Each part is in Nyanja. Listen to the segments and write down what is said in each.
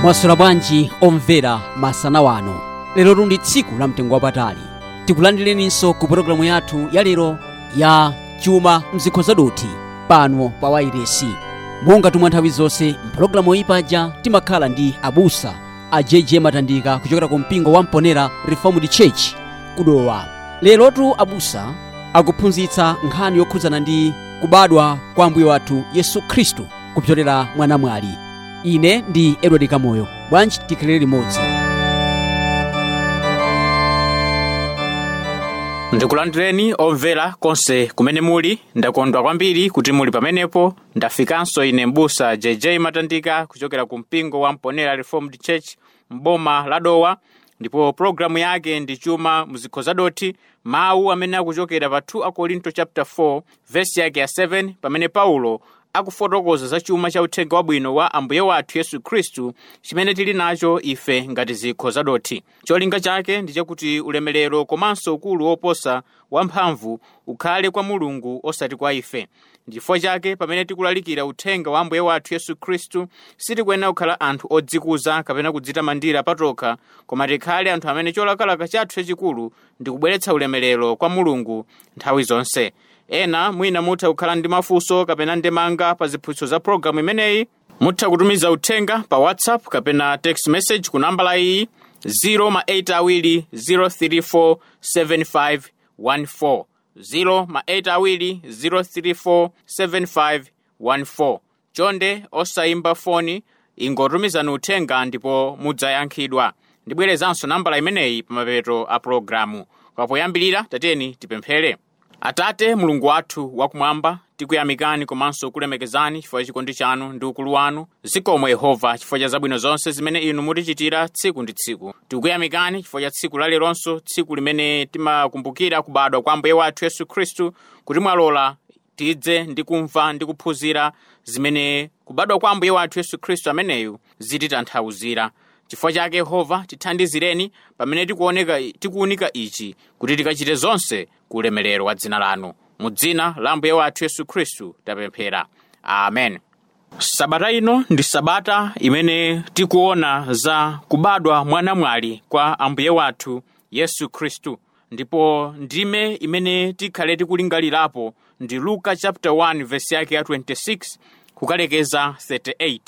Mwaswera bwanji omvera masana wano? Lero ndi tsiku la mtengo wapatali. Tikulandireninso ku pologalamu yathu ya lero ya Chuma Mzikho Zadothi pano pa wairesi. Monga tumwa nthawi zonse, mpologalamu iyi paja timakhala ndi abusa a JJ Matandika kuchokera ku mpingo wa Mponera Reformed Church kudowa. Lerotu abusa akuphunzitsa nkhani yokhudzana ndi kubadwa kwa Ambuye wathu Yesu Khristu kupyolera mwa namwali. Ine ndi Edward Kamoyo. Bwanji tikhalire limodzi. Ndikulandireni omvera konse kumene muli. Ndakondwa kwambiri kuti muli pamenepo. Ndafikanso ine mbusa JJ Matandika kuchokera ku mpingo wa Mponera Reformed Church m'boma la Dowa, ndipo pologalamu yake ndi Chuma Mzikho Zadothi, mawu amene akuchokera pa 2 Akorinto chapter 4 verse yake ya 7, pamene Paulo akufotokoza za chuma cha uthenga wabwino wa Ambuye wathu Yesu Khristu chimene tili nacho ife ngati zikho zadothi. Cholinga chake ndi chakuti ulemerero komanso ukulu woposa wamphamvu ukhale kwa Mulungu osati kwa ife. Ndifukwa chake pamene tikulalikira uthenga wa Ambuye wathu Yesu Khristu sitikuyenera kukhala anthu odzikuza kapena kudzitamandira patokha, koma tikhale anthu amene cholakalaka chathu chachikulu ndi kubweretsa ulemerero kwa Mulungu nthawi zonse. Ena mwina mutha kukhala ndi mafunso kapena ndemanga pa ziphunzitso za pologalamu imeneyi. Mutha kutumiza uthenga pa WhatsApp kapena text message ku nambala iyi 0 034 7514, 0 034 7514. Chonde osayimba foni, ingotumizani uthenga ndipo mudzayankhidwa. Ndibwerezanso nambala imeneyi pamapeto a pologalamu. Kapoyambirira tateni tipemphere. Atate Mulungu wathu wakumwamba, tikuyamikani komanso kulemekezani chifukwa cha chikondi chanu ndi ukulu wanu. Zikomo Yehova chifukwa cha zabwino zonse zimene inu mutichitira tsiku ndi tsiku. Tikuyamikani chifukwa cha tsiku laleronso, tsiku limene timakumbukira kubadwa kwa Ambuye wathu Yesu Khristu, kuti mwalola tidze ndi kumva ndi kuphunzira zimene kubadwa kwa Ambuye wathu Yesu Khristu ameneyu zititanthauzira. Chifukwa chake Yehova, tithandizireni pamene tikuunika ichi, kuti tikachite zonse ku ulemerero wa dzina lanu. Mu dzina la Ambuye wathu Yesu Khristu tapemphera, amen. Sabata ino ndi sabata imene tikuona za kubadwa mwa namwali kwa Ambuye wathu Yesu Khristu, ndipo ndime imene tikhale tikulingalirapo ndi Luka chapter 1 verse yake ya 26 kukalekeza 38.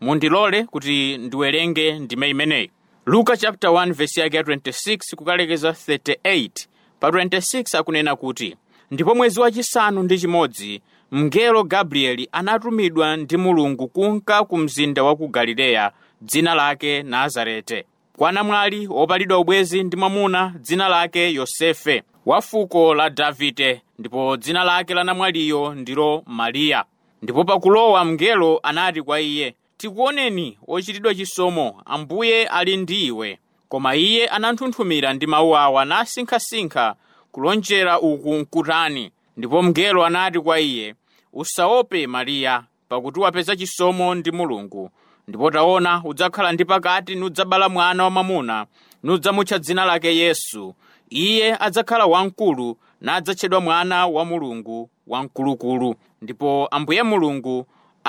Mundilole kuti ndiwerenge ndime imeneyi. Luka chapter 1 verse yake ya 26 kukalekeza 38. Pa 26 akunena kuti, ndipo mwezi wachisanu ndi chimodzi mngelo Gabrieli anatumidwa ndi Mulungu kunka ku mzinda wa ku Galileya, dzina lake Nazarete, kwa namwali wopalidwa ubwezi ndi mwamuna dzina lake Yosefe, wa fuko la Davide, ndipo dzina lake la namwaliyo ndilo Mariya. Ndipo pakulowa mngelo anati kwa iye, tikuoneni wochitidwa chisomo, Ambuye ali ndi iwe. Koma iye ananthunthumira ndi mawu awa nasinkhasinkha kulonjera uku nkutani. Ndipo mngelo anati kwa iye, usaope Mariya, pakuti wapeza chisomo ndi Mulungu. Ndipo taona, udzakhala ndi pakati nudzabala mwana wamwamuna, nudzamutcha dzina lake Yesu. Iye adzakhala wamkulu nadzatchedwa Mwana wa Mulungu Wamkulukulu. Ndipo Ambuye Mulungu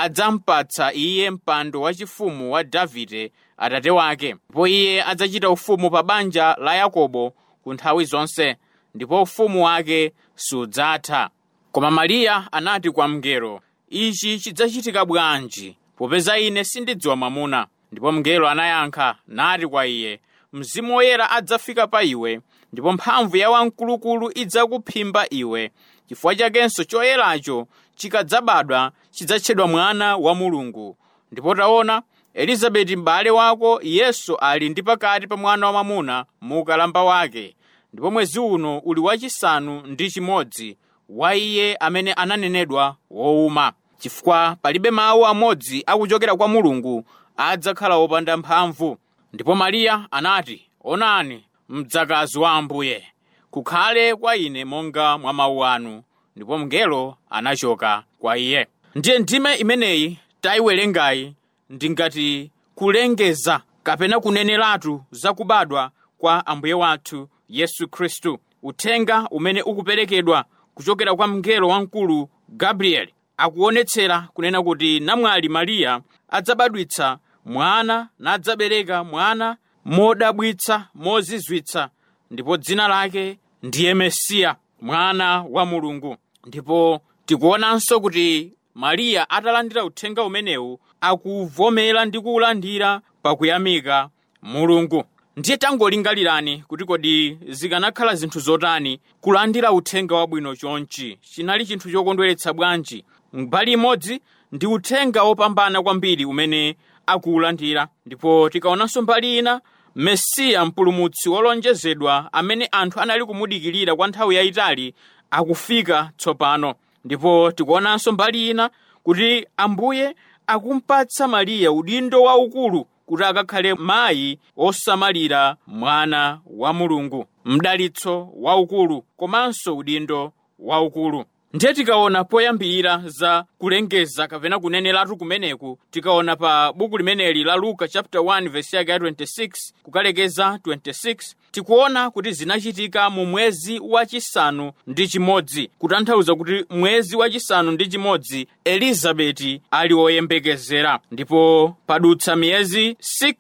adzampatsa iye mpando wachifumu wa Davide atate wake, ndipo iye adzachita ufumu pa banja la Yakobo ku nthawi zonse, ndipo ufumu wake sudzatha. Koma Mariya anati kwa mngelo, ichi chidzachitika bwanji, popeza ine sindidziwa mwamuna? Ndipo mngelo anayankha nati kwa iye, Mzimu Woyera adzafika pa iwe, ndipo mphamvu ya Wamkulukulu idzakuphimba iwe. Chifukwa chakenso choyeracho chikadzabadwa chidzatchedwa Mwana wa Mulungu. Ndipo taona, Elizabeti m'bale wako Yesu ali ndi pakati pa mwana wamwamuna mu ukalamba wake, ndipo mwezi uno uli wachisanu ndi chimodzi wa iye amene ananenedwa wowuma. Chifukwa palibe mawu amodzi akuchokera kwa Mulungu adzakhala wopanda mphamvu. Ndipo Mariya anati, onani, mdzakazi wa Ambuye, kukhale kwa ine monga mwa mawu anu. Ndipo mngelo anachoka kwa iye. Ndiye ndime imeneyi tayiwerengayi ndi ngati kulengeza kapena kuneneratu za kubadwa kwa Ambuye wathu Yesu Khristu. Uthenga umene ukuperekedwa kuchokera kwa mngelo wamkulu Gabrieli akuonetsera kunena kuti namwali Mariya adzabadwitsa mwana nadzabereka mwana modabwitsa, mozizwitsa, ndipo dzina lake ndiye Mesiya, mwana wa Mulungu. Ndipo tikuonanso kuti Mariya atalandira uthenga umenewu akuvomera ndi kuwulandira pakuyamika Mulungu. Ndiye tangolingalirani kuti kodi zikanakhala zinthu zotani kulandira uthenga wabwino chonchi. Chinali chinthu chokondweretsa bwanji. Mbali imodzi ndi uthenga wopambana kwambiri umene akuwulandira, ndipo tikaonanso mbali ina, Mesiya mpulumutsi wolonjezedwa amene anthu anali kumudikirira kwa nthawi yayitali akufika tsopano. Ndipo tikuonanso mbali ina kuti Ambuye akumpatsa Mariya udindo waukulu kuti akakhale mayi osamalira mwana wa Mulungu, mdalitso waukulu komanso udindo waukulu. Ndiye tikaona poyambirira za kulengeza kapena kuneneratu kumeneku, tikaona pa buku limeneli la Luka chapter 1 verse yake ya 26 kukalekeza 26, tikuona kuti zinachitika mu mwezi wachisanu ndi chimodzi, kutanthauza kuti mwezi wachisanu ndi chimodzi Elizabeti ali woyembekezera. Ndipo padutsa miyezi 6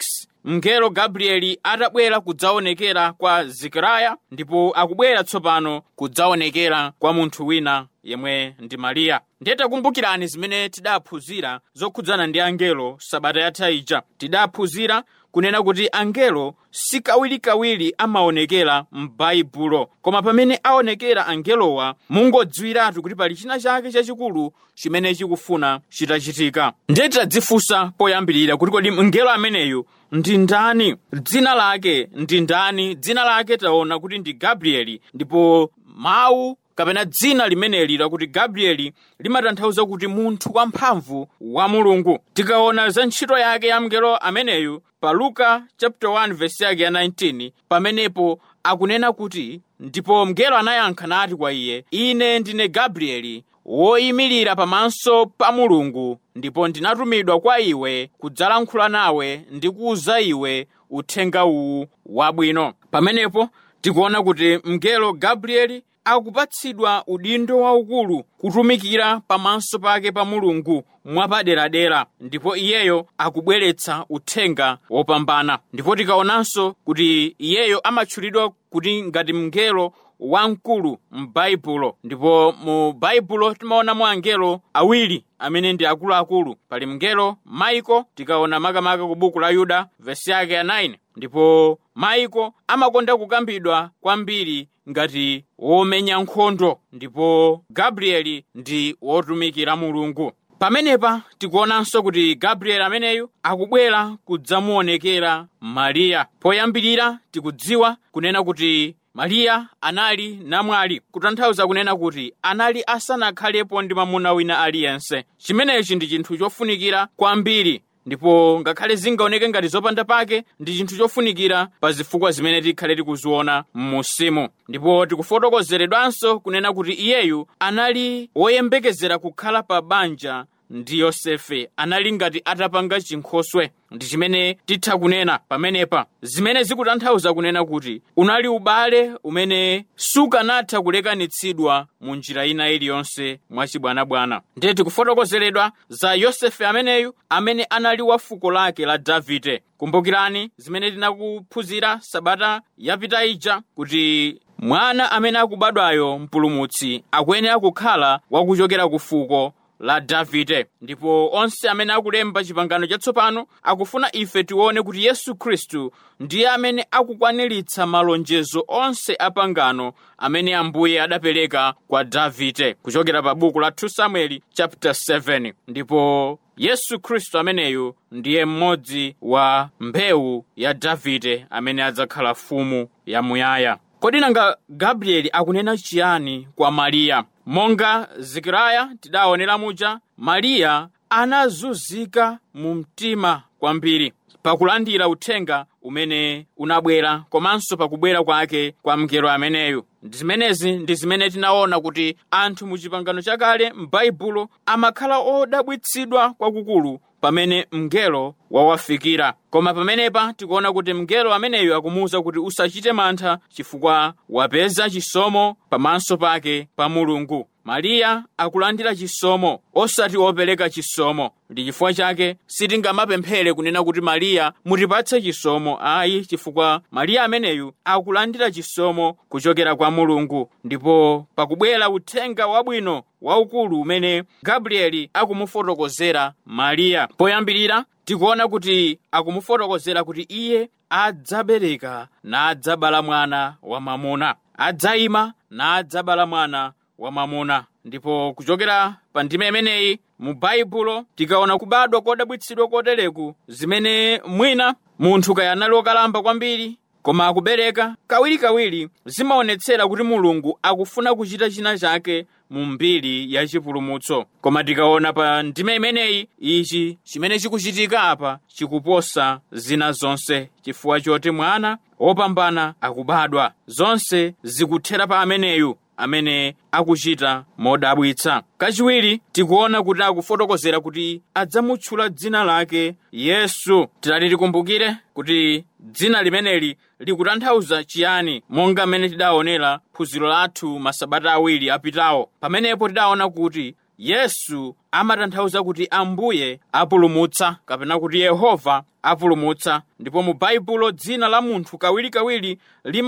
mngelo Gabrieli atabwera kudzaonekera kwa Zekariya, ndipo akubwera tsopano kudzaonekera kwa munthu wina yemwe ndi Mariya. Ndiye takumbukirani zimene tidaphunzira zokhudzana ndi angelo sabata yatha ija. Tidaphunzira kunena kuti angelo sikawirikawiri amaonekera m'Baibulo, koma pamene aonekera angelowa mungodziwiratu kuti pali china chake chachikulu chimene chikufuna chitachitika. Ndiye tadzifunsa poyambirira kuti kodi mngelo ameneyu ndi ndani? Dzina lake ndi ndani? Dzina lake taona kuti ndi Gabrieli, ndipo mawu kapena dzina limeneli lakuti Gabrieli limatanthauza kuti munthu wamphamvu wa Mulungu. Tikaona za ntchito yake ya mngelo ameneyu pa Luka chapter 1 verse yake ya 19, pamenepo akunena kuti, ndipo mngelo anayankha nati kwa iye, ine ndine Gabrieli woyimirira pamaso pa Mulungu, ndipo ndinatumidwa kwa iwe kudzalankhula nawe ndi kuwuza iwe uthenga uwu wabwino. Pamenepo tikuona kuti mngelo Gabrieli akupatsidwa udindo waukulu kutumikira pamaso pake pa Mulungu mwapaderadera, ndipo iyeyo akubweretsa uthenga wopambana. Ndipo tikaonanso kuti iyeyo amatchulidwa kuti ngati mngelo wamkulu m'Baibulo, ndipo mu Baibulo timaonamo angelo awiri amene ndi akuluakulu. Pali mngelo Maiko, tikaona makamaka ku buku la Yuda vesi yake ya 9, ndipo Maiko amakonda kukambidwa kwambiri ngati womenya nkhondo, ndipo Gabrieli ndi wotumikira Mulungu. Pamenepa tikuonanso kuti Gabrieli ameneyu akubwera kudzamuonekera Mariya. Poyambirira tikudziwa kunena kuti Mariya anali namwali, kutanthauza kunena kuti anali asanakhalepo ndi mwamuna wina aliyense. Chimenechi ndi chinthu chofunikira kwambiri, ndipo ngakhale zingaoneke ngati zopanda pake, ndi chinthu chofunikira pa zifukwa zimene tikhale tikuziona m'musimu. Ndipo tikufotokozeredwanso kunena kuti iyeyu anali woyembekezera kukhala pa banja ndi Yosefe, anali ngati atapanga chinkhoswe. Ndi chimene titha kunena pamenepa, zimene zikutanthauza kunena kuti unali ubale umene sukanatha kulekanitsidwa mu njira ina iliyonse mwachibwanabwana. Ndiye tikufotokozeredwa za Yosefe ameneyu amene anali wa fuko lake la Davide. Kumbukirani zimene tinakuphunzira sabata yapita ija kuti mwana amene akubadwayo mpulumutsi akuyenera kukhala wakuchokera ku fuko la Davide, ndipo onse amene akulemba chipangano chatsopano akufuna ife tione kuti Yesu Khristu ndiye amene akukwaniritsa malonjezo onse a pangano amene Ambuye adapereka kwa Davide kuchokera pa buku la 2 Samueli chapter 7. Ndipo Yesu Khristu ameneyu ndiye mmodzi wa mbewu ya Davide amene adzakhala mfumu yamuyaya. Kodi nanga Gabrieli akunena chiyani kwa Mariya? Monga Zekariya tidaonera muja, Mariya anazunzika mu mtima kwambiri pakulandira uthenga umene unabwera komanso pakubwera kwake kwa mngelo ameneyu. Zimenezi ndi zimene tinaona kuti anthu mu chipangano chakale m'Baibulo amakhala odabwitsidwa kwakukulu pamene mngelo wawafikira. Koma pamenepa tikuona kuti mngelo ameneyu akumuwuza kuti usachite mantha chifukwa wapeza chisomo pamaso pake pa Mulungu. Mariya akulandira chisomo, osati wopereka chisomo. Ndi chifukwa chake sitingamapemphere kunena kuti Mariya mutipatse chisomo, ayi, chifukwa Mariya ameneyu akulandira chisomo kuchokera kwa Mulungu. Ndipo pakubwera uthenga wabwino waukulu umene Gabrieli akumufotokozera Mariya, poyambirira tikuona kuti akumufotokozera kuti iye adzabereka nadzabala mwana wamwamuna, adzayima nadzabala mwana wamwamuna. Ndipo kuchokera pa ndime imeneyi mu Baibulo tikaona kubadwa kodabwitsidwa kotereku, zimene mwina munthu kaya anali wokalamba kwambiri koma akubereka kawirikawiri, zimaonetsera kuti Mulungu akufuna kuchita china chake mu mbiri ya chipulumutso. Koma tikaona pa ndime imeneyi, ichi chimene chikuchitika apa chikuposa zina zonse, chifukwa choti mwana wopambana akubadwa. Zonse zikuthera pa ameneyu amene akuchita modabwitsa. Kachiwiri tikuona kuti akufotokozera kuti adzamutchula dzina lake Yesu. Tilati tikumbukire kuti dzina limeneli likutanthauza chiyani, monga mmene tidaonera phunziro lathu masabata awiri apitawo. Pamenepo tidaona kuti Yesu amatanthauza kuti Ambuye apulumutsa, kapena kuti Yehova apulumutsa. Ndipo mu Baibulo dzina la munthu kawirikawiri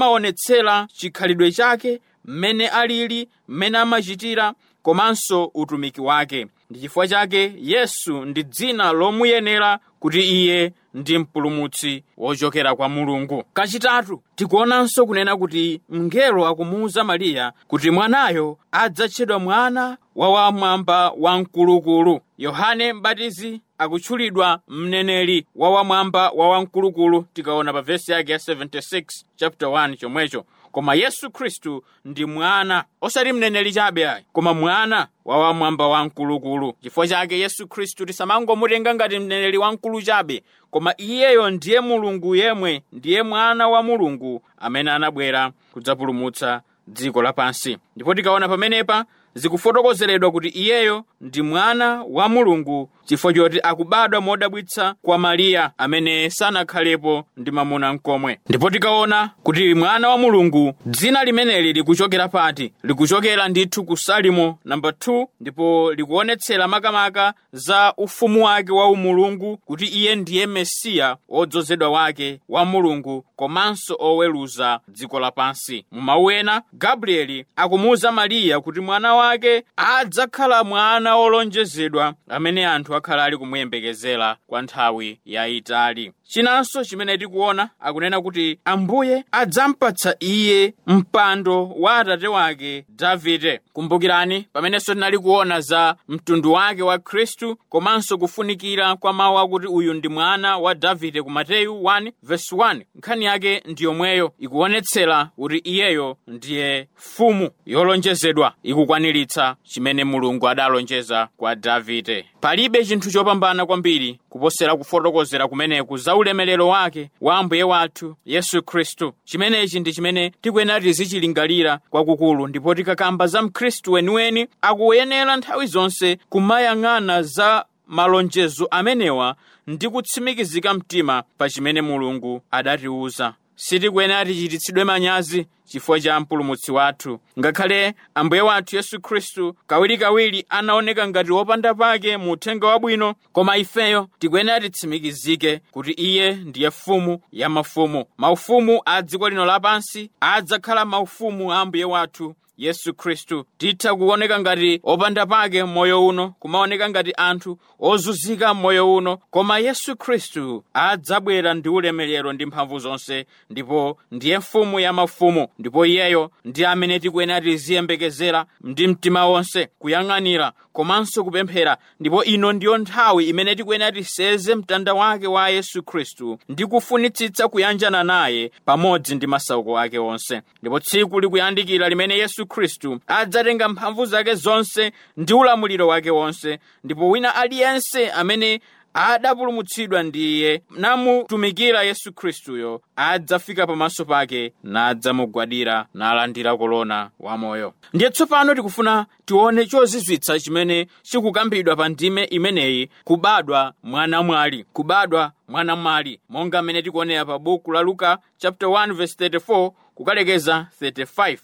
limaonetsera chikhalidwe chake, mmene alili, mmene amachitira, komanso utumiki wake. Ndi chifukwa chake Yesu ndi dzina lomuyenera kuti iye ndi mpulumutsi wochokera kwa Mulungu. Kachitatu tikuonanso kunena kuti mngelo akumuwuza Mariya kuti mwanayo adzatchedwa mwana wa wamwamba wamkulukulu. Yohane Mbatizi akutchulidwa mneneri wa wamwamba wa wamkulukulu, tikaona pa vesi yake ya 76 chapter 1 chomwecho. Koma Yesu Khristu ndi mwana, osati mneneri chabe ayi, koma mwana wa wamwamba wamkulukulu. Chifukwa chake Yesu Khristu tisamangomutenga ngati mneneri wamkulu chabe, koma iyeyo ndiye Mulungu yemwe, ndiye mwana wa Mulungu amene anabwera kudzapulumutsa dziko lapansi. Ndipo tikaona pamenepa zikufotokozeredwa kuti iyeyo ndi mwana wa Mulungu chifukwa choti akubadwa modabwitsa kwa Mariya amene sanakhalepo ndi mwamuna mkomwe. Ndipo tikaona kuti mwana wa Mulungu, dzina limeneli likuchokera pati? Likuchokera ndithu ku Salimo namba 2, ndipo likuonetsera makamaka za ufumu wake wa umulungu, kuti iye ndiye Mesiya wodzozedwa wake wa Mulungu komanso oweruza dziko lapansi. Mu mawu ena, Gabrieli akumuwuza Mariya kuti mwana wake adzakhala mwana wolonjezedwa amene anthu akhala ali kumuyembekezera kwa nthawi yayitali. Chinanso chimene tikuona, akunena kuti Ambuye adzampatsa iye mpando wa atate wake Davide. Kumbukirani pamenenso tinali kuona za mtundu wake wa Khristu komanso kufunikira kwa mawu akuti uyu ndi mwana wa Davide ku Mateyu 1:1. Nkhani yake ndi yomweyo, ikuonetsera kuti iyeyo ndiye mfumu yolonjezedwa, ikukwaniritsa chimene Mulungu adalonjeza kwa Davide. Palibe chinthu chopambana kwambiri kuposera kufotokozera kumeneku za ulemerero wake wa Ambuye wathu Yesu Khristu. Chimenechi ndi chimene tikuyenera tizichilingalira kwakukulu, ndipo tikakamba za Mkhristu weniweni akuyenera nthawi zonse kumayang'ana za malonjezo amenewa ndi kutsimikizika mtima pa chimene Mulungu adatiwuza. Sitikuyenera tichititsidwe manyazi chifukwa cha mpulumutsi wathu. Ngakhale Ambuye wathu Yesu Khristu kawirikawiri anaoneka ngati wopanda pake mu uthenga wabwino, koma ifeyo tikuyenera titsimikizike kuti iye ndiye mfumu ya mafumu. Maufumu a dziko lino lapansi adzakhala maufumu a Ambuye wathu Yesu Khristu. Titha kuoneka ngati opanda pake moyo uno, kumaoneka ngati anthu ozunzika moyo uno, koma Yesu Khristu adzabwera ndi ulemerero ndi mphamvu zonse, ndipo ndiye mfumu ya mafumu. Ndipo iyeyo ndi amene tikuyenera tiziyembekezera ndi mtima wonse, kuyang'anira komanso kupemphera. Ndipo ino ndiyo nthawi imene tikuyenera tiseze mtanda wake wa Yesu Khristu ndi kufunitsitsa kuyanjana naye pamodzi ndi masauko ake onse. Ndipo tsiku likuyandikira limene Yesu Khristu adzatenga mphamvu zake zonse ndi ulamuliro wake wonse, ndipo wina aliyense amene Adapulumutsidwa ndi iye namutumikira Yesu Khristuyo adzafika pamaso pake nadzamugwadira nalandira kolona wamoyo. Ndiye tsopano tikufuna tione chozizwitsa chimene chikukambidwa pa ndime imeneyi, kubadwa mwanamwali, kubadwa mwanamwali, monga mmene tikuonera pa buku la Luka chapter 1 verse 34 kukalekeza 35.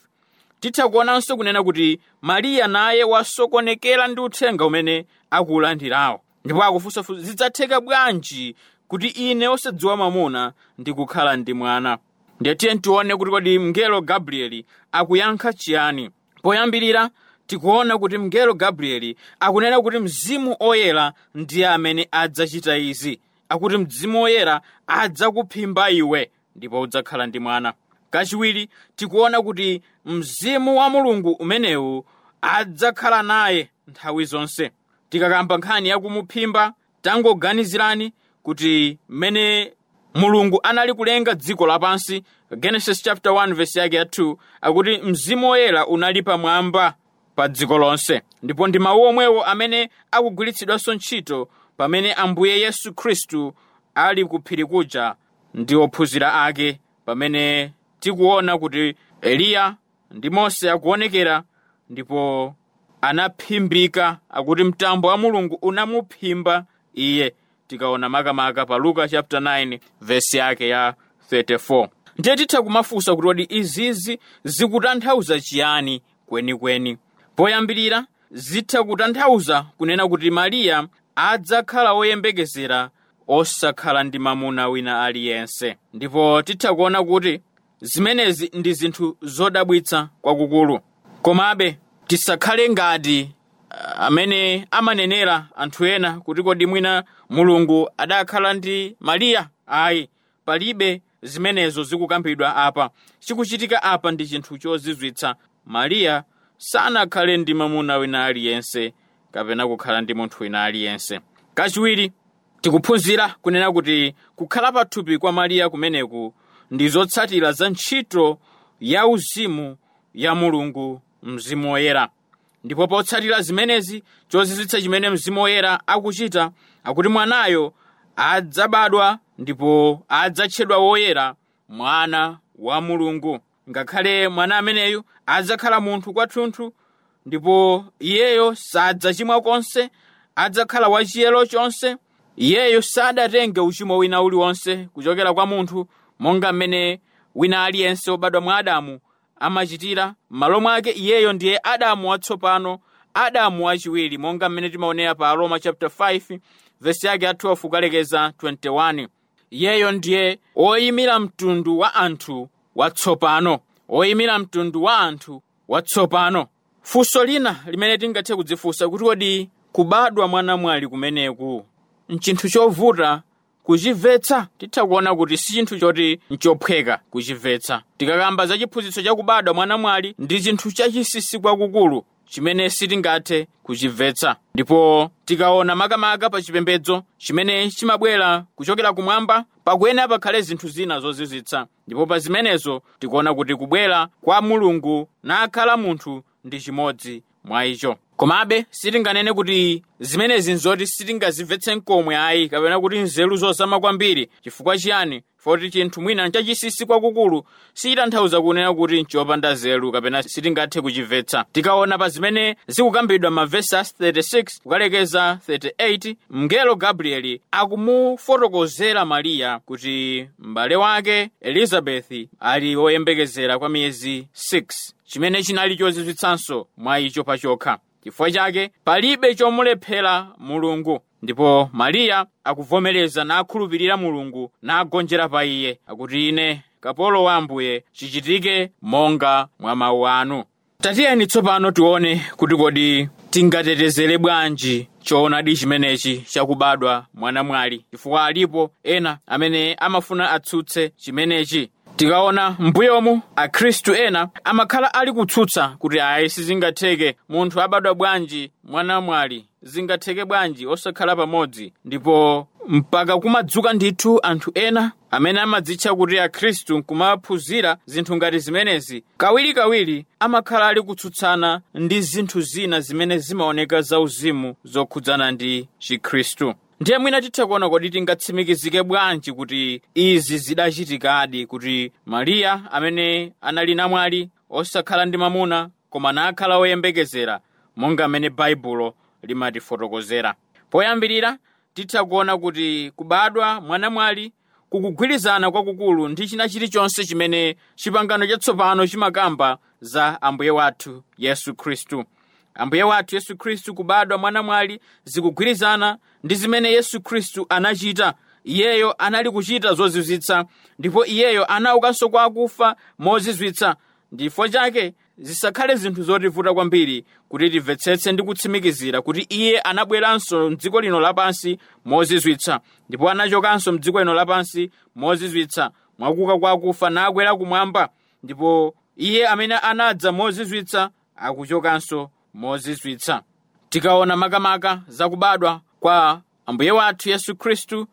Titha kuonanso kunena kuti Mariya naye wasokonekera ndi uthenga umene akuwulandirawo, ndipo akufunsafunsa, zidzatheka bwanji kuti ine osadziwa mwamuna ndikukhala ndi mwana? Ndiye tiye tione kuti kodi mngelo Gabrieli akuyankha chiyani. Poyambirira tikuona kuti mngelo Gabrieli akunena kuti Mzimu Oyera ndiye amene adzachita izi, akuti Mzimu Oyera adzakuphimba iwe ndipo udzakhala ndi mwana. Kachiwiri tikuona kuti Mzimu wa Mulungu umenewu adzakhala naye nthawi zonse. Tikakamba nkhani yakumuphimba, tangoganizirani kuti mmene Mulungu anali kulenga dziko lapansi, Genesis chapter 1 verse yake ya 2, akuti Mzimu Woyera unali pamwamba pa dziko lonse. Ndipo ndi mawu omwewo amene akugwiritsidwanso ntchito pamene Ambuye Yesu Khristu ali ku phiri kuja ndi ophunzira ake, pamene tikuona kuti Eliya ndi Mose akuonekera ndipo anaphimbika, akuti mtambo wa Mulungu unamuphimba iye. Tikaona makamaka pa Luka chapter 9 verse yake ya 34. Ndiye titha kumafunsa kuti kodi izizi zikutanthauza chiyani kwenikweni. Poyambirira zitha kutanthauza kunena kuti Mariya adzakhala woyembekezera osakhala ndi mamuna wina aliyense, ndipo titha kuona kuti zimenezi ndi zinthu zodabwitsa kwakukulu. Komabe tisakhale ngati amene amanenera anthu ena kuti kodi mwina Mulungu adakhala ndi Mariya. Ayi, palibe zimenezo zikukambidwa apa. Chikuchitika apa ndi chinthu chozizwitsa. Mariya sanakhale ndi mamuna wina aliyense kapena kukhala ndi munthu wina aliyense. Kachiwiri tikuphunzira kunena kuti kukhala pathupi kwa Mariya kumeneku ndi zotsatira za ntchito ya uzimu ya Mulungu Mzimu Woyera. Ndipo potsatira zimenezi, chozizwitsa chimene Mzimu Woyera akuchita, akuti mwanayo adzabadwa ndipo adzatchedwa woyera, mwana wa Mulungu. Ngakhale mwana ameneyu adzakhala munthu kwathunthu, ndipo iyeyo sadzachimwa konse, adzakhala wachiyero chonse. Iyeyo sadatenge uchimo wina uliwonse kuchokera kwa munthu, monga mmene wina aliyense wobadwa mwa Adamu amachitira. M'malo mwake iyeyo ndiye Adamu watsopano, Adamu wachiwiri, monga mmene timaonera pa Aroma chapter 5 verse yake ya 12 kukalekeza 21. Iyeyo ndiye oyimira mtundu wa anthu watsopano, oyimira mtundu wa anthu watsopano. Funso lina limene tingathe kudzifunsa kuti kodi kubadwa mwanamwali kumeneku nchinthu chovuta kuchimvetsa? Titha kuona kuti si chinthu choti nchophweka kuchimvetsa. Tikakamba za chiphunzitso chakubadwa mwanamwali, ndi chinthu chachinsinsi kwakukulu chimene sitingathe kuchimvetsa. Ndipo tikaona makamaka pa chipembedzo chimene chimabwera kuchokera kumwamba, pakuyenera pakhale zinthu zina zozizwitsa. Ndipo pa zimenezo tikuona kuti kubwera kwa Mulungu nakhala munthu ndi chimodzi mwa icho. Komabe sitinganene kuti zimenezi nzoti sitingazimvetse nkomwe ayi, kapena kuti nzeru zozama kwambiri. Chifukwa chiyani? Foti chinthu mwina nchachinsinsi kwakukulu sichitanthauza kunena kuti nchopanda nzeru kapena sitingathe kuchimvetsa. Tikaona pa zimene zikukambidwa mavesi 36 kukalekeza 38, mngelo Gabrieli akumufotokozera Mariya kuti m'bale wake Elizabethi ali woyembekezera kwa miyezi 6, chimene chinali chozizwitsanso mwa icho pachokha. Chifukwa chake palibe chomulephera Mulungu. Ndipo Mariya akuvomereza nakhulupirira Mulungu nagonjera pa iye, akuti ine kapolo wa Ambuye, chichitike monga mwa mawu anu. Tatiyeni tsopano tione kuti kodi tingatetezere bwanji choonadi chimenechi chakubadwa mwanamwali, chifukwa alipo ena amene amafuna atsutse chimenechi. Tikaona mbuyomu akhristu ena amakhala ali kutsutsa kuti ayi, sizingatheke, munthu abadwa bwanji mwanamwali, zingatheke bwanji osakhala pamodzi. Ndipo mpaka kumadzuka ndithu anthu ena amene amadzitcha kuti akhristu nkumaphunzira zinthu ngati zimenezi, kawirikawiri amakhala ali kutsutsana ndi zinthu zina zimene zimaoneka zauzimu zokhudzana ndi chikhristu. Ndiye mwina titha kuona kodi tingatsimikizike bwanji kuti izi zidachitikadi, kuti Mariya amene anali namwali osakhala ndi mamuna koma nakhala woyembekezera monga mmene Baibulo limatifotokozera. Poyambirira titha kuona kuti kubadwa mwanamwali kukugwirizana kwakukulu ndi china chilichonse chimene chipangano chatsopano chimakamba za Ambuye wathu Yesu Khristu. Ambuye wathu Yesu Khristu kubadwa mwanamwali zikugwirizana ndi zimene Yesu Khristu anachita. Iyeyo anali kuchita zozizwitsa, ndipo iyeyo anaukanso kwa akufa mozizwitsa. Ndifo chake zisakhale zinthu zotivuta kwambiri kuti timvetsetse ndi kutsimikizira kuti iye anabweranso mdziko lino lapansi mozizwitsa, ndipo anachokanso mdziko lino lapansi mozizwitsa mwakuka kwa akufa nakwera kumwamba. Ndipo iye amene anadza mozizwitsa akuchokanso mozizwitsa. Tikaona makamaka zakubadwa kwa Ambuye wathu Yesu Khristu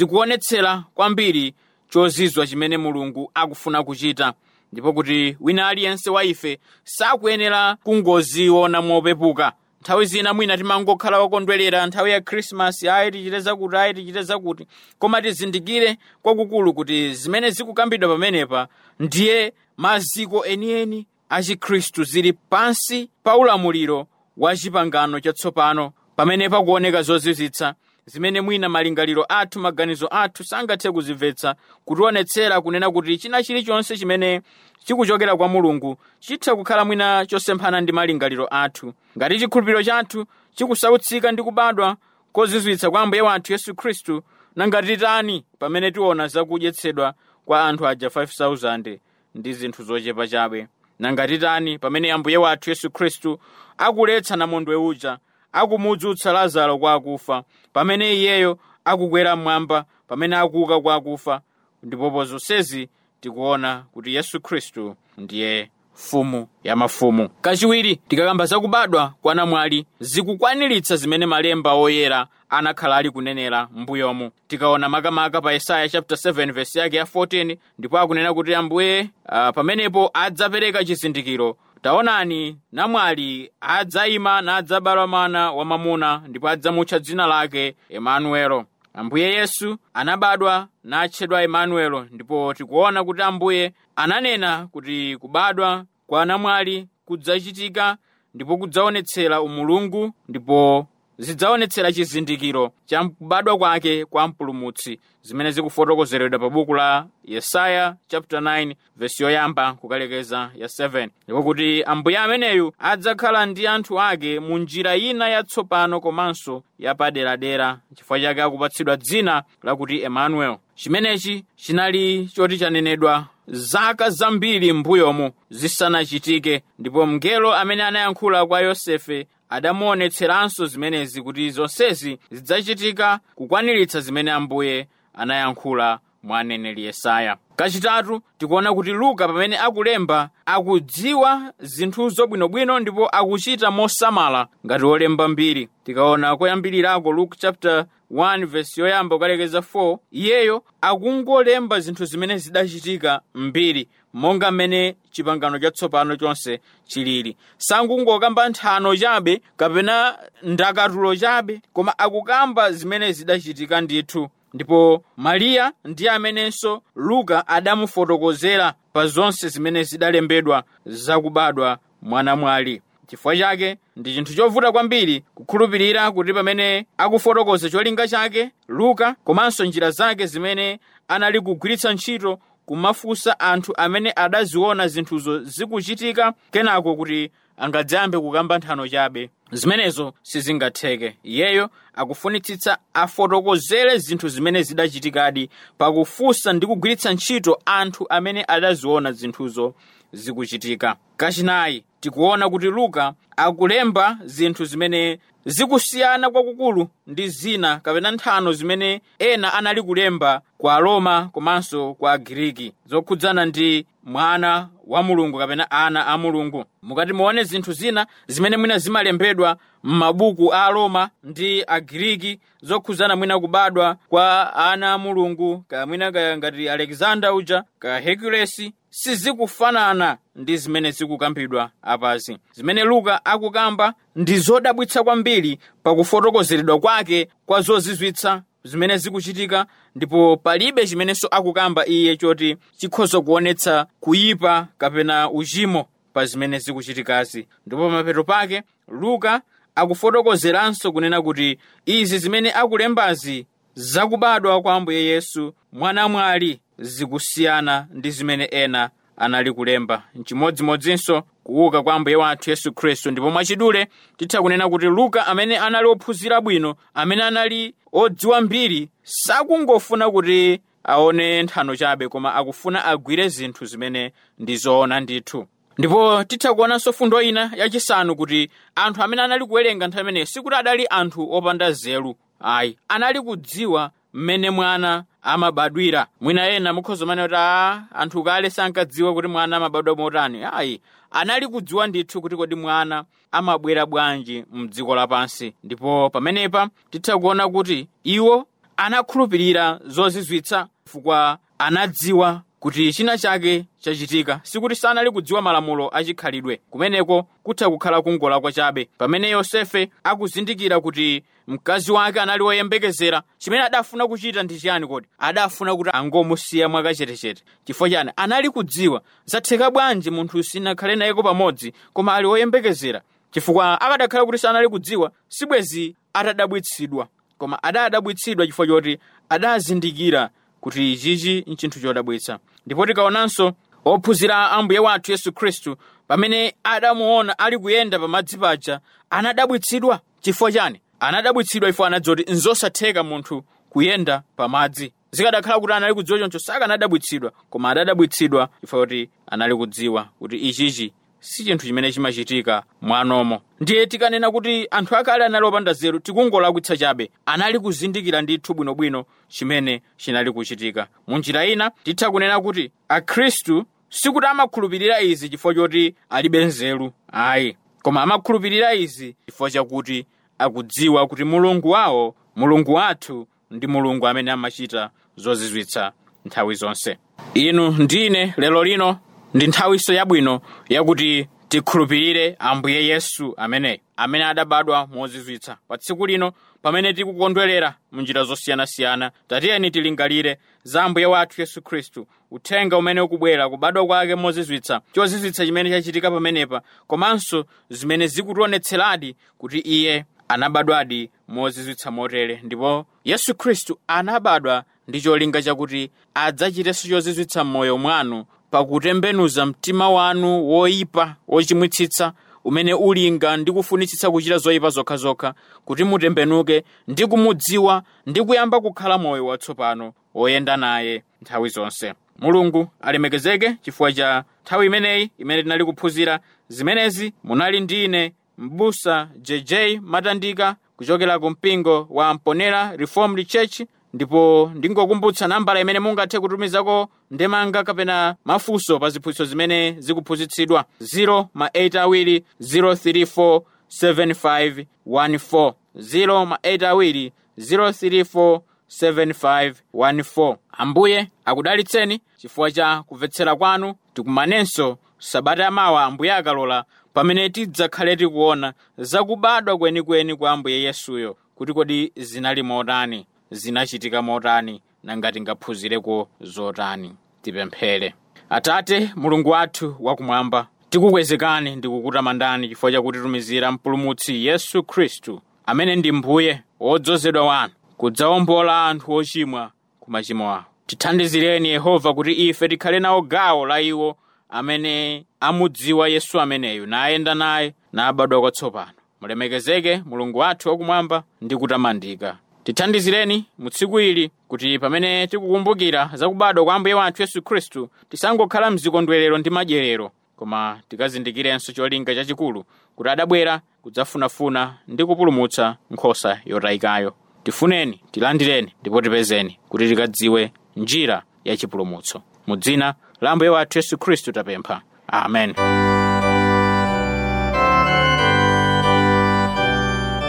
zikuonetsera kwambiri chozizwa chimene Mulungu akufuna kuchita, ndipo kuti wina aliyense wa ife sakuyenera kungoziona mopepuka. Nthawi zina mwina timangokhala wokondwerera nthawi ya Khrisimasi, ayi tichite zakuti, ayi tichite zakuti, koma tizindikire kwakukulu kuti zimene zikukambidwa pamenepa ndiye maziko enieni a Chikhristu, zili pansi pa ulamuliro wa chipangano chatsopano, pamene pakuoneka zozizwitsa zimene mwina malingaliro athu, maganizo athu sangathe kuzimvetsa, kutionetsera kunena kuti china chilichonse chimene chikuchokera kwa Mulungu chitha kukhala mwina chosemphana ndi malingaliro athu. Ngati chikhulupiriro chathu chikusautsika ndi kubadwa kozizwitsa kwa Ambuye wathu Yesu Khristu, nanga titani pamene tiona zakudyetsedwa kwa anthu aja 5,000 ndi zinthu zochepa chabe? Nanga titani pamene Ambuye wathu Yesu Khristu akuletsa namondwe uja, akumudzutsa Lazaro kwa akufa, pamene iyeyo akukwera mmwamba, pamene akuuka kwa akufa? Ndipo zonsezi tikuona kuti Yesu Khristu ndiye mfumu ya mafumu. Kachiwiri, tikakamba zakubadwa kwa namwali zikukwaniritsa zimene malemba oyera anakhala ali kunenera m'mbuyomu. Tikaona makamaka pa Yesaya chapter 7 verse yake ya 14, ndipo akunena kuti Ambuye pamenepo adzapereka chizindikiro: taonani, namwali adzayima nadzabala mwana wamwamuna, ndipo adzamutcha dzina lake Emanuelo. Ambuye Yesu anabadwa natchedwa Emanuelo, ndipo tikuona kuti Ambuye ananena kuti kubadwa kwa namwali kudzachitika ndipo kudzaonetsera umulungu, ndipo zidzaonetsera chizindikiro cha kubadwa kwake kwa Mpulumutsi, zimene zikufotokozeredwa pa buku la Yesaya chapter 9 verse yoyamba kukalekeza ya 7, ndipo kuti Ambuye ameneyu adzakhala ndi anthu ake mu njira ina yatsopano komanso yapaderadera, chifukwa chake akupatsidwa dzina lakuti Emanuel. Chimenechi chinali choti chanenedwa zaka zambiri m'mbuyomu zisanachitike, ndipo mngelo amene anayankhula kwa Yosefe adamuonetseranso zimenezi, kuti zonsezi zidzachitika kukwaniritsa zimene Ambuye anayankhula mwa aneneri Yesaya. Kachitatu, tikuona kuti Luka pamene akulemba akudziwa zinthuzo bwinobwino ndipo akuchita mosamala ngati wolemba mbiri. Tikaona koyambirirako Luke chapter 1 verse yoyamba kukalekeza 4, iyeyo akungolemba zinthu zimene zidachitika mbiri monga mmene chipangano chatsopano chonse chilili. Sangungokamba nthano chabe kapena ndakatulo chabe, koma akukamba zimene zidachitika ndithu. Ndipo Mariya ndiye amenenso Luka adamufotokozera pa zonse zimene zidalembedwa zakubadwa mwanamwali. Chifukwa chake ndi chinthu chovuta kwambiri kukhulupirira kuti pamene akufotokoza cholinga chake Luka komanso njira zake zimene anali kugwiritsa ntchito kumafunsa anthu amene adaziona zinthuzo zikuchitika, kenako kuti angadzayambe kukamba nthano chabe, zimenezo sizingatheke. Iyeyo akufunitsitsa afotokozere zinthu zimene zidachitikadi pakufunsa ndi kugwiritsa ntchito anthu amene adaziona zinthuzo zikuchitika. Kachinayi, tikuona kuti Luka akulemba zinthu zimene zikusiyana kwakukulu ndi zina kapena nthano zimene ena anali kulemba kwa Aroma komanso kwa Agiriki zokhudzana ndi mwana wa Mulungu kapena ana a Mulungu. Mukati muone zinthu zina zimene mwina zimalembedwa zimalembedwa m'mabuku a Aroma ndi Agiriki zokhuzana mwina kubadwa kwa ana a Mulungu, kaya mwina kaya ngati Alexander uja, kaya Hercules, sizikufanana ndi zimene zikukambidwa apazi. Zimene Luka akukamba ndi zodabwitsa kwambiri pakufotokozeredwa kwake kwa zozizwitsa zimene zikuchitika, ndipo palibe chimenenso akukamba iye choti chikhoza kuonetsa kuyipa kapena uchimo pa zimene zikuchitikazi. Ndipo pamapeto pake Luka akufotokozeranso kunena kuti izi zimene akulembazi zakubadwa kwa Ambuye Yesu mwanamwali zikusiyana ndi zimene ena anali kulemba. Nchimodzimodzinso kuuka kwa Ambuye wathu Yesu Khristu. Ndipo mwachidule titha kunena kuti Luka amene anali ophunzira bwino, amene anali odziwa mbiri, sakungofuna kuti aone nthano chabe, koma akufuna agwire zinthu zimene ndi zoona ndithu. Ndipo titha kuonanso fundo ina yachisanu kuti anthu amene anali kuwerenga nthawi imeneyo sikuti adali anthu opanda nzeru ayi, anali kudziwa mmene mwana amabadwira. Mwina ena mukhoza manena kuti anthu kale sankadziwa kuti mwana amabadwa motani. Ayi, anali kudziwa ndithu kuti kodi mwana amabwera bwanji mdziko lapansi. Ndipo pamenepa titha kuona kuti iwo anakhulupirira zozizwitsa chifukwa anadziwa kuti china chake chachitika. Sikuti sanali kudziwa malamulo achikhalidwe, kumeneko kutha kukhala kungolakwa chabe. Pamene Yosefe akuzindikira kuti mkazi wake anali woyembekezera, chimene adafuna kuchita ndi chiyani kodi? Adafuna kuti angomusiya mwakachetechete. Chifukwa chani? Anali kudziwa zatheka bwanji munthu sinakhale nayeko pamodzi koma ali woyembekezera. Chifukwa akadakhala kuti sanali kudziwa, sibwezi atadabwitsidwa, koma adadabwitsidwa chifukwa choti adazindikira kuti ichichi nchinthu chodabwitsa. Ndipo tikaonanso ophunzira Ambuye wathu Yesu Khristu pamene adamuona ali kuyenda pamadzi paja, anadabwitsidwa. Chifukwa chani? Anadabwitsidwa ifo anadziwa kuti nzosatheka munthu kuyenda pamadzi. Zikadakhala kuti anali kudziwa choncho sakanadabwitsidwa, koma adadabwitsidwa chifukwa kuti anali kudziwa kuti ichichi si chinthu chimene chimachitika mwanomo. Ndiye tikanena kuti anthu akale anali opanda nzeru, tikungolakwitsa chabe. Anali kuzindikira ndithu bwinobwino chimene chinali kuchitika. Munjira ina titha kunena kuti Akhristu sikuti amakhulupirira izi chifukwa choti alibe nzeru ayi, koma amakhulupirira izi chifukwa chakuti akudziwa kuti Mulungu wawo, Mulungu wathu, ndi Mulungu amene amachita zozizwitsa nthawi zonse. Inu ndine lero lino ndi nthawinso yabwino yakuti tikhulupirire Ambuye Yesu ameneyo amene adabadwa mozizwitsa. Pa tsiku lino pamene tikukondwerera munjira zosiyanasiyana, tatiyeni tilingalire za Ambuye wathu Yesu Khristu, uthenga umene ukubwera, kubadwa kwake mozizwitsa, chozizwitsa chimene chachitika pamenepa, komanso zimene zikutionetseradi kuti iye anabadwadi mozizwitsa motere. Ndipo Yesu Khristu anabadwa ndi cholinga chakuti adzachitenso chozizwitsa m'moyo mwanu pakutembenuza mtima wanu woyipa wochimwitsitsa umene ulinga ndi kufunitsitsa kuchita zoyipa zokhazokha, kuti mutembenuke ndi kumudziwa ndi kuyamba kukhala moyo watsopano woyenda naye nthawi zonse. Mulungu alemekezeke chifukwa cha nthawi imeneyi imene tinali kuphunzira zimenezi. Munali ndi ine m'busa JJ Matandika kuchokera ku mpingo wa Mponera Reformed Church. Ndipo ndingokumbutsa nambala imene mungathe kutumizako ndemanga kapena mafunso pa ziphunzitso zimene zikuphunzitsidwa: 0 ma 8 awiri 034 7514, 0 ma 8 awiri 034 7514. Ambuye akudalitseni chifukwa cha kumvetsera kwanu. Tikumanenso sabata yamawa Ambuye akalola, pamene tidzakhale tikuona zakubadwa kwenikweni kwa Ambuye Yesuyo, kuti kodi zinali motani, zinachitika motani, nanga tingaphunzireko zotani. Tipemphere. Atate Mulungu wathu wakumwamba, tikukwezekani ndi kukutamandani chifukwa chakutitumizira Mpulumutsi Yesu Khristu amene ndi Mbuye wodzozedwa wanu kudzawombola anthu ochimwa ku machimo awo. Tithandizireni Yehova kuti ife tikhale nawo gawo la iwo amene amudziwa Yesu ameneyu, nayenda naye, nabadwa kwatsopano. Mulemekezeke Mulungu wathu wakumwamba ndi kutamandika. Tithandizireni mu tsiku ili kuti pamene tikukumbukira zakubadwa kwa Ambuye wathu Yesu Khristu, tisangokhala mzikondwerero ndi madyerero, koma tikazindikirenso cholinga chachikulu kuti adabwera kudzafunafuna ndi kupulumutsa nkhosa yotayikayo. Tifuneni, tilandireni ndipo tipezeni kuti tikadziwe njira ya chipulumutso. Mu dzina la Ambuye wathu Yesu Khristu tapempha, amen.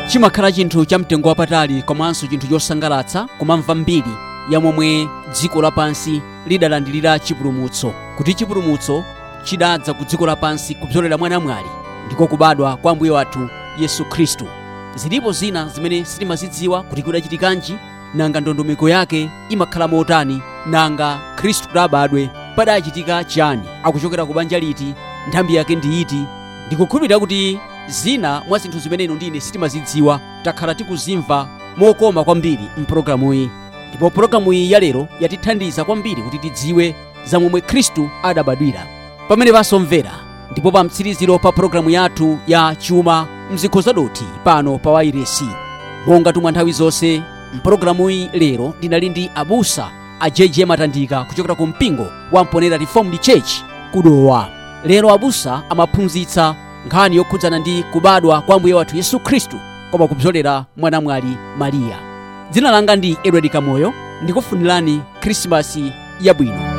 Chimakhala chinthu cha mtengo wapatali komanso chinthu chosangalatsa kumamva mbiri ya momwe dziko lapansi lidalandilira chipulumutso, kuti chipulumutso chidadza ku dziko lapansi kupyolera mwa namwali, ndiko kubadwa kwa Ambuye wathu Yesu Khristu. Zilipo zina zimene sitimazidziwa kuti kudachitikanji, nanga ndondomeko yake imakhala motani, nanga Khristu kudabadwe padachitika chani, akuchokera ku banja liti, nthambi yake ndi iti. Ndikukhulupirira kuti zina mwa zinthu zimene inu ndine sitimazidziwa takhala tikuzimva mokoma kwambiri mpulogalamuyi, ndipo pulogalamuyi ya lero yatithandiza kwambiri kuti tidziwe za momwe Khristu adabadwira. Pamene pasomvera ndipo pa mtsiriziro pa pulogalamu yathu ya Chuma Mzikho Zadothi pano pa wairesi, monga tumwa nthawi zonse mpulogalamuyi lero ndinali ndi abusa a JJ Matandika kuchokera ku mpingo wa Mponera Reformed Church kudowa. Lero abusa amaphunzitsa nkhani yokhudzana ndi kubadwa kwa Ambuye wathu Yesu Khristu koma kupyolera mwa namwali Mariya. Dzina langa ndi Edward Kamoyo, ndikufunirani Khrisimasi yabwino.